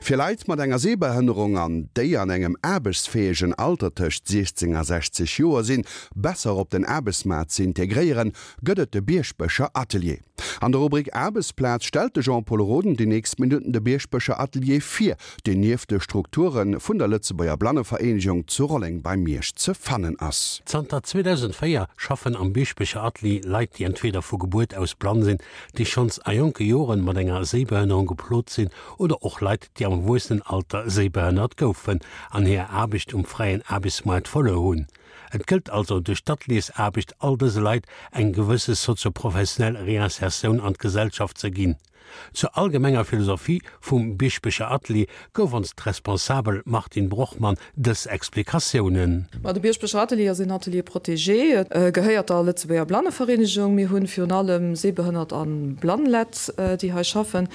Fir Leit mat enger Sehbehënnerung an déi an engem aarbechtsfäegen Alter tëscht 16 a 60 Joer sinn, besser op den Aarbechtsmaart ze integréieren, gëtt et de Bierschbecher Atelier. An der Rubrik Aarbechtsplaz stellt de Jean-Pol Roden déi nächst Minutten de Bierschbecher Atelier vir, deen nieft de Strukture vun der Lëtzebuerger Blannevereenegung zu Rolleng bei Miersch ze fannen ass. Zanter 2004 schaffen am Bierschbecher Atelier Leit, déi entweder vu Gebuert aus blann sinn, déi schonns a jonke Joren mat enger Séibehënnerung geplot sinn oder och Leit, déi am Erwuessenenalter séibehënnert goufen an hir Aarbecht um fräien Aarbechtsmaart verluer hunn. Et gëllt also duerch d'Ateliersaarbecht all dëse Leit eng gewësse sozioprofessionell Réinsertioun an d'Gesellschaft ze ginn. Zur allgemenger Philosophie vum Bieschbecher Atelier gouf ons d'Responsabel Martine Brochmann dës Explikatiounen. Ma de Bieschbecher Atelier ass een Atelier protégé, gehéiert der Lëtzebuerger Blannevereenegung. Mir hunn virun allem sehbehënnert a blann Lett, déi hei schaffen.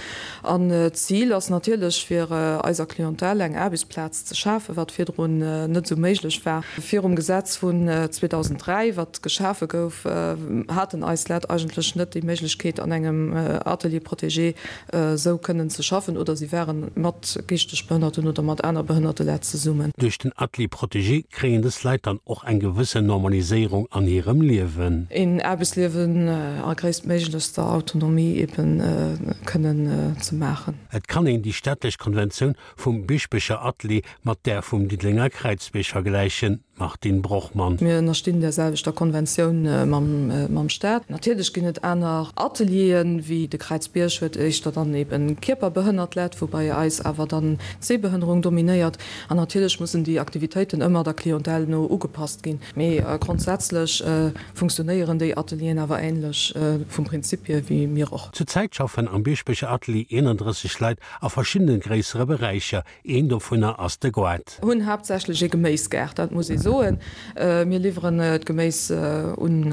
An d'Zil ass natierlech, fir eiser Clientèle eng Aarbechtsplaz ze schafen, wat virdrun net esou méiglech war. Virum Gesetz vun 2003, wat geschafe gouf, haten eis Lett eigentlech net déi Méiglechkeet, an engem Atelier protégé esou kënnen ze schaffen, oder si ware mat geeschteg Behënnerten oder mat aner behënnerte Lett zesummen. Duerch den Atelier protégé kréien dës Leit dann och eng gewëssen Normaliséierung an hirem Liewen. Een Aarbechtsliewen a gréisstméiglechster Autonomie eben kënnen ze maachen. Et kann een déi städtlech Konventioun vum Bieschbecher Atelier mat där vum Diddelenger Kräizbierg vergläichen, Martine Brochmann. Mir ënnerstinn där selwechter Konventioun mam Staat. Natierlech ginn et aner Atelieren, wéi de Kräizbierg huet éischter dann eben kierperbehënnert Lett, wou bei eis awer dann d'Sehbehënnerung dominéiert. An natierlech mussen déi Aktivitéiten ëmmer der Clientèle no ugepasst ginn. Mee grondsätzlech funktionéieren déi Atelieren awer änlech vum Prinzip hier wéi mir och. Zur Zäit schaffen am Bieschbecher Atelier 31 Leit a verschiddene gréissere Beräicher. Een dovunner ass de Goart. Hunn haaptsächlech ee Geméisgaart, dat muss ee soen. Mir liwweren d'Geméis un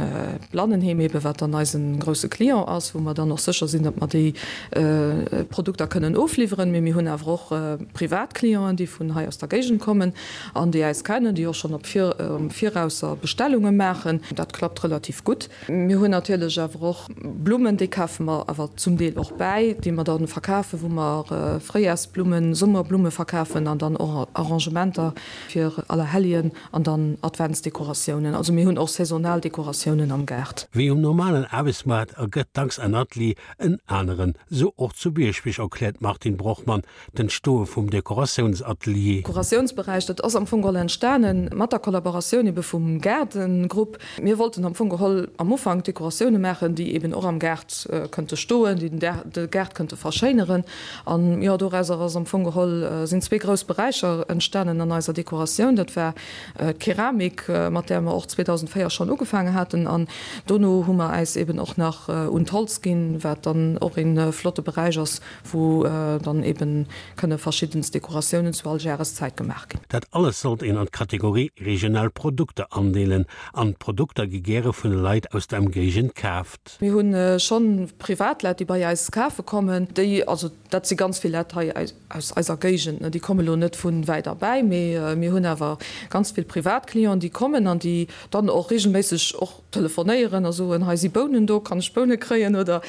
d'Blannenheem ebe wat dann eise grousse Client ass, wou mer dann och sécher sinn, datt mer déi Produkter kënnen ofliwweren. Mee mir hunn awer och privat Clienten, déi vun hei aus der Géigend kommen an déi äis kennen, déi och schonn op am Virausser Bestellunge maachen. Dat klappt relativ gutt. Mir hunn natierlech awer och Blummen, déi kafe mer awer zum Deel och bäi, déi mer da verkafen, wou mer Fréijarsblummen, Summerblumme verkafen an dann och Arrangementer fir Allerhelljen an dann Adventsdekoratiounen. Also mir hunn och saisonal Dekoratiounen am Gaart. Wéi um normalen Aarbechtsmaart ergëtt dacks en Atelier en aneren, sou och zu Bierschbech, erkläert d'Martine Brochmann d'Entstoe vum Dekoratiounsatelier. Dekoratiounsberäich, dat ass am Fong geholl entstane mat der Kollaboratioun ebe vum Gaardengrupp. Mir wollten am Fong geholl am Ufank Dekoratioune maachen, déi eben och am Gaart kënnte stoen, déi de Gaart kënnte verschéineren. An jo, dorauser ass am Fong geholl, sinn zwee grouss Beräicher entstanen an eiser Dekoratioun. Dat war d'Keramik, mat där mer och 2004 schonn ugefaange haten. An dono hu mer äis eben och nach un d'Holz ginn, wat dann och ee flotte Beräich ass, wou dann eben kënne verschiddenst Dekoratiounen zu all Jareszäit gemaach ginn. Dat alles sollt een an d'Kategorie regional Produkter andeelen an d'Produkter gi gäre vun de Leit aus der Emgéigend kaaft. Mir hu schonn Privatleit, déi bei eis kafe kommen, déi, also dat si ganz vill Leit hei aus eiser Géigend, déi komme lo net vu wäit erbäi, mee mir hunn awer ganz vill Privatclienten, déi kommen an déi dann och regelméisseg och Telefonéieren a soen, hei si Bounen do, kann ech Boune kréien oder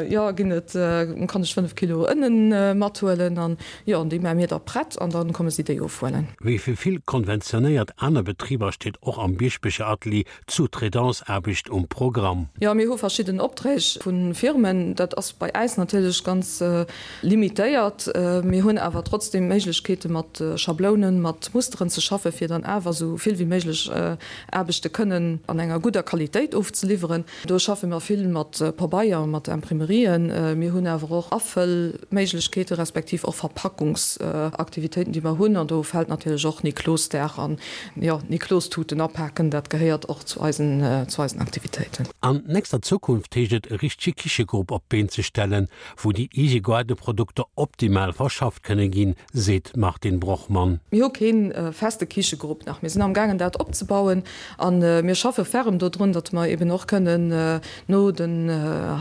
jo, ginn et, kann ech 5 Kilo Ënnen mathuelen an jo, an déi maache mir da prett an da komme si déi ofhuelen. Wéi fir vill konventionéiert aner Betriber steet och am Bieschbecher Atelier d'Sous-traitance-Aarbecht um Programm. Jo, mir hu verschidden Opträg vu Firmen. Dat ass bei äis natierlech ganz limitéiert. Mir hunn awer trotzdeem Méiglechkeete mat Schablounen, mat Musteren ze schaffen, fir dann awer esou vill wéi méiglech Aarbechte kënnen an enger gudder Qualitéit ofzeliwweren. Do schaffe mer vill mat Pabeier, mat Imprimerien. Mir hunn awer och Afëllméiglechkeete respektiv och Verpackungsaktivitéiten, déi mer hunn. An do fält natierlech och Niklosdag an, jo, Niklostuten apaken, dat gehéiert och zu eisen, zu eisen Aktivitéiten. An nächster Zukunft heescht et e richtege Kichegrupp op d'Been ze stellen, wou déi eege Gaardeprodukter optimal verschafft kënne ginn, seet d'Martine Brochmann. Mir hu kee feste Kichegrupp nach. Mir sinn amgaangen dat opzebauen a mir schaffe ferrem dodrun, datt mer eben och kënnen no den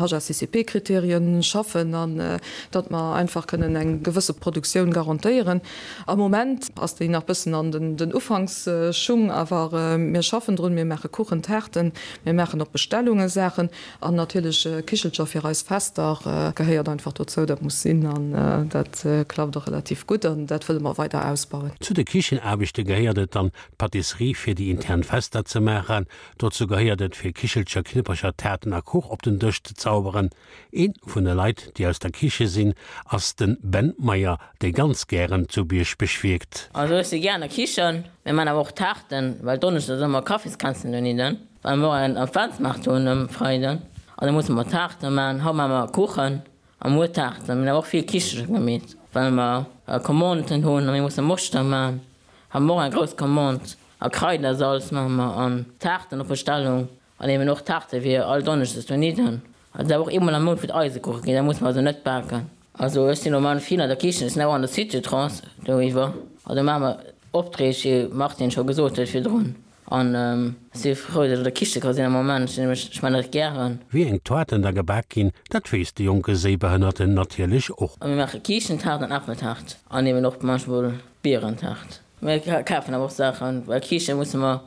HACCP-Kriterien schaffen an datt mer einfach kënnen eng gewësse Produktioun garantéieren. Am Moment ass déi nach bëssen an den Ufanksschung, awer mir schaffen drun. Mir maache Kuchen, Taarten, mir maachen op Bestellunge Saachen an natierlech Kichelcher fir eis Fester gehéiert einfach dozou. Dat muss sinn an dat klappt och relativ gutt an dat wëlle mer weider ausbauen. Zu de Kichenaarbechte gehéiert et dann, d'Pâtisserie fir déi intern Fester ze maachen. Dozou gehéiert et, fir Kichelcher, Knippercher, Taarten a Kuch op den Dësch ze zauberen. Een vun de Leit, déi aus der Kiche sinn, ass den Ben Meyer, dee ganz gären zu Bierschbech wierkt. Also ech si gär an der Kichen, mir man awer och Taarten, well Donneschdes ass ëmmer Kaffiskränzchen dohinne, well mer och en Adventsmaart hunn um Freiden an da musse mer Taarte man. Haut man mer Kuchen a muer Taarten. Mir hunn awer och vill Kichelcher gemeet, well mer Commanden hunn a mir musse Moschter man. Hu mer och eng grouss Commande a Kraidersalz man mer an Taarten op Bestellung. An eben och Taarte fir all Donneschdes dohinne. Also dat och eemol am Mount fir d'Eisekuche ginn, dat muss mer also net baken. Also ech sinn normal vill an der Kichen, ech sinn awer an der Suite-Trance doriwwer. Also maache mer Opträg, wéi Martine scho gesot huet virdrun. An ech si frou, datt ech an der Kiche ka sinn am Moment, ech sinn nämlech, ech maachen dat gären. Wéi eng Toarten da gebak ginn, dat weess de jonke Séibehënnerten natierlech och. A mir maache Kiischentaart an Äppeltaart an eben och manchmol Bierentaart. Mir kafen awer och Saachen, well Kiischte musse mer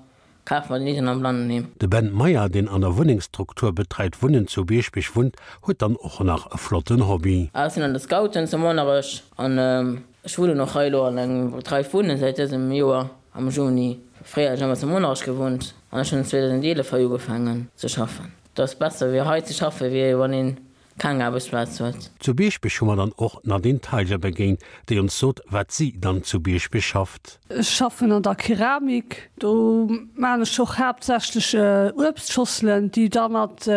Kafe mer den Iden am Blannenheem. De Ben Meyer, deen an der Wunnengsstruktur Betreit Wunnen zu Bierschbech wunnt, huet dann och nach e flotten Hobby. Ech sinn an de Scouten zu Monnerech an ech wunnen och hei elo an engem Betreit Wunnen säit dësem Joer am Juni. Fréier hunn ech ëmmer zu Monnerech gewunnt an ech hunn 2011 hei ugefaangen ze schaffen. Et ass besser wéi hei ze schaffen, wéi wann een keng Aarbechtsplaz huet. Zu Bierschbech hu mer dann och d'Nadine Teiger begéint, déi ons sot, wat si dann zu Bierschbech schafft. Ech schaffen an der Keramik, do maan ech och haaptsächlech Uebstschosselen, déi da mat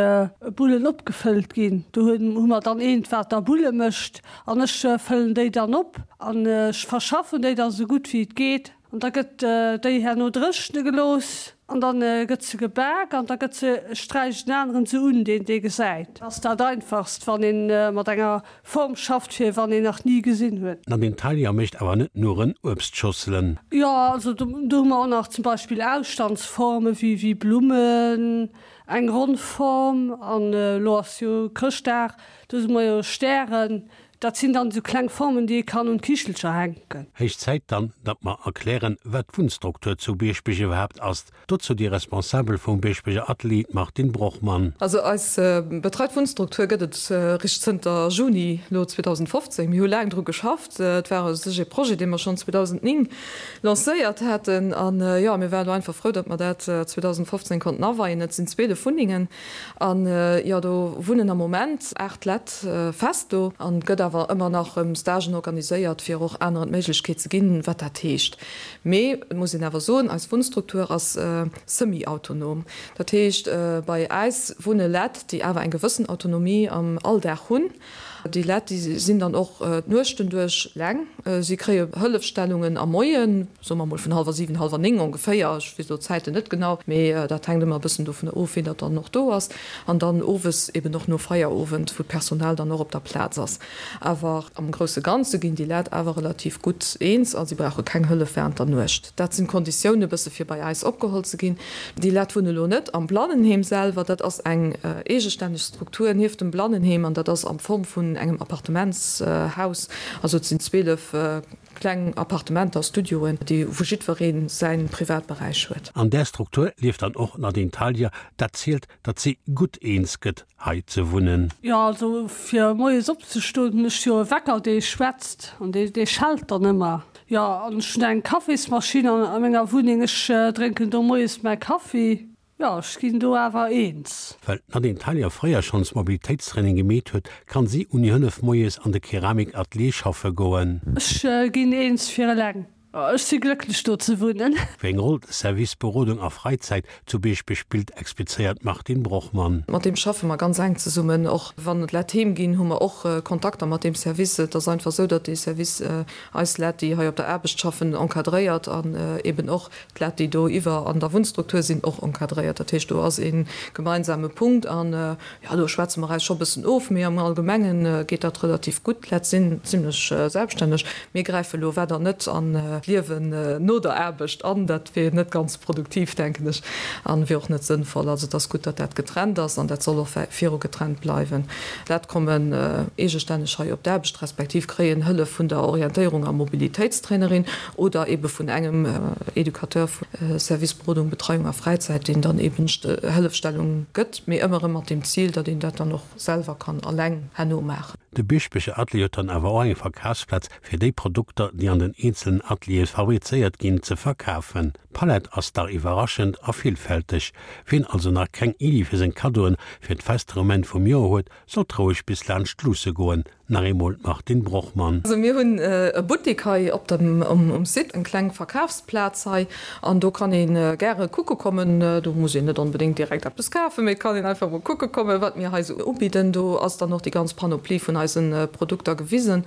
Bullen opgefëllt ginn. Do hu mer dann eent wat da Bulle mécht an ech fëllen déi dann op an ech verschaffen déi da sou gutt wéi et geet. An da gëtt déi herno dréchne gelooss an da gëtt se gebak an da gëtt se, sträicht en aneren se un, deen dee gesäit. Ass dat einfachst, wann ee mat enger Form schafft, fir wann een nach ni gesinn huet. D'Nadine Thalia mécht awer net nuren Uebstschosselen. Jo, also do hu mer och nach zum Beispill Ausstandsforme wéi Blummen, eng ronn Form an elo ass jo Chrëschtdag, do hu mer jo Stären. Dat sinn dann esou kleng Formen, déi ee kann un d'Kichelcher hänken. Héich Zäit dann, datt mer erklären, wat d'Wunnstruktur zu Bierschbech iwwerhaapt ass. Dozou déi Responsabel vum Bierschbecher Atelier, d'Martine Brochmann. Also eis betreit Wunnstruktur gëtt et richt zënter Juni lo 2015. Mir hu laang dru geschafft. Et war u sech ee Projet, dee mer schonn 2009 lancéiert haten. An jo, mir waren elo einfach frou, datt mer dat 2015 konnten aweien. Et sinn 12 Wunnengen. An jo, do wunnen am Moment 8 Lett fest do. An et gëtt awer ëmmer nach erëm Stagen organiséiert, fir och aneren d'Méiglechkeet ze ginn, wat dat heescht. Mee et muss een awer soen, eis Wunnstruktur ass semi-autonom. Dat heescht, bei äis wunne Lett, déi awer eng gewëssen Autonomie am Alldag hunn. Déi Lett, déi sinn dann och d'Nuechten duerch eleng. Si kréie Hëllefstellungen am Moien, soe mer mol vun hallwer 7, hallwer 9 ongeféier, ech weess elo d'Zäiten net genau, mee dat hänkt ëmmer e bëssen dovun of, wien dat dann och do ass, an dann owes eben och no Feierowend, wou d'Personal dann och op der Plaz ass. Awer am grousse Ganze ginn déi Lett awer relativ gutt eens a si brauche keng Hëllef während der Nuecht. Dat sinn d'Konditioune bësse fir bei äis opgeholl ze ginn. Déi Lett wunne lo net am Blannenheem selwer, dat ass eng eegestänneg Struktur nieft dem Blannenheem an dat ass am Form vun engem Appartementshaus. Also et sinn 12 kleng Appartementer, Studioen, déi wou jiddweree säi Privatberäich huet. An där Struktur lieft dann och d'Nadine Thalia, dat zielt, datt si gutt eens gëtt hei ze wunnen. Jo, also fir moies opzestoen hunn ech jo e Wecker dee schwätzt an dee dee schellt dann ëmmer. Jo, an ech hunn eng Kaffismaschinn a menger Wunneng, ech drénken do moies mäi Kaffi. Jo, ech ginn do awer eens. Well d'Nadine Thalia fréier schonns Mobilitéitstraining gemeet huet, kann si ouni Hëllef moies an de Keramikatelier schaffe goen. Ech ginn eens fir eleng. Ech si glécklech do ze wunnen. Wéi eng Roll de Service Berodung a Fräizäit zu Bierschbech spillt, explizéiert d'Martine Brochmann. Mat deem schaffe mer ganz enk zesummen. Och wann et Lett heem ginn, hu mer och Kontakter mat deem Service. Et ass einfach esou, datt dee Service eis Lett, déi hei op der Aarbecht schaffen, encadréiert an eben och d'Lett, déi do iwwer an der Wunnstruktur sinn, och encadréiert. Dat heescht, do ass ee gemeinsame Punkt an, jo, do schwätze mer eis scho bëssen of, mee am Allgemenge geet dat relativ gutt. D'Lett sinn zimlech selbststänneg. Mir gräife lo weider net an. d'Liewen no der Aarbecht an. Dat wier net ganz produktiv, denken ech, an wier och net sënnvoll. Also et ass gutt, datt dat getrennt ass an dat soll och viru getrennt bleiwen. Leit kommen eegestänneg hei op d'Aarbecht, respektiv kréien Hëllef vun der Orientéierung a Mobilitéitstrainerin oder ebe vun engem Educateur vu Service Berodung, Betreiung a Fräizäit, deen dann eben Hëllefstellung gëtt, mee ëmmer erëm mat dem Zil, datt een dat dann och selwer kann alleng herno maachen. De Bieschbecher Atelier huet dann awer och eng Verkafsplaz fir déi Produkter, déi an den eenzelen Ateliere fabrizéiert ginn, ze verkafen. D'Palett ass dach iwwerraschend a villfälteg. Wien also nach keng Iddi fir seng Kaddoen fir d'Fester um Enn vum Joer huet, sollt roueg bis laanscht luusse goen. Nach eemol d'Martine Brochmann. Also mir hunn e Buttik hei op dem um Site, eng kleng Verkafsplaz hei an do kann ee gäre kucke kommen. Do muss een net onbedéngt direkt eppes kafen, mee et kann een einfach mol kucke kommen, wat mir hei esou ubidden. Do ass dann och déi ganz Panoplie vun eise Produkter gewisen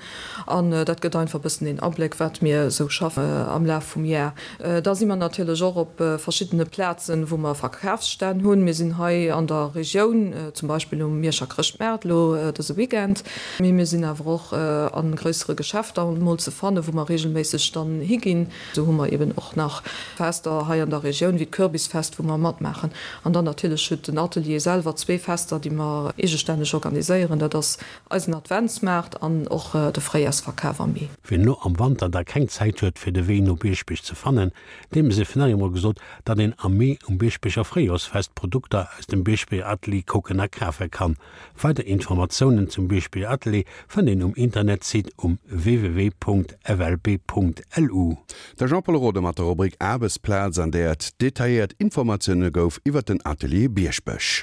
an dat gëtt einfach e bëssen een Abléck, wat mir esou schaffen am Laf vum Jar. Da si mer natierlech och op verschiddene Plazen, wou mer Verkafsstänn hunn. Mir sinn hei an der Regioun, zum Beispill um Mierscher Chrëschtmaart elo dëse Weekend. Mee mir sinn awer och a gréissere Geschäfter mol ze fannen, wou mer reegelméisseg dann higinn. Esou hu mer eben och nach Fester hei an der Regioun, wéi d'Kürbisfest, wou mer matmaachen. An dann natierlech huet den Atelier selwer zwee Fester, déi mer eegestänneg organiséieren. Dat ass Eisen Adventsmaart an och de Fréijarsverkaf am Mee. Wien elo am Wanter da keng Zäit huet fir de Wee no Bieschbech ze fannen, deem sief nach eemol gesot, datt een am Mee um Bieschbecher Fréijorsfest Produkter aus dem Bieschbecher Atelier kucken a kafe kann. Weider Informatiounen zum Bieschbecher Atelier fënnt een um Internetsite um www.flb.lu. De Jean-Pol Rode mat der Rubrik Aarbechtsplaz, an där et detailléiert Informatioune gouf iwwer den Atelier Bieschbech.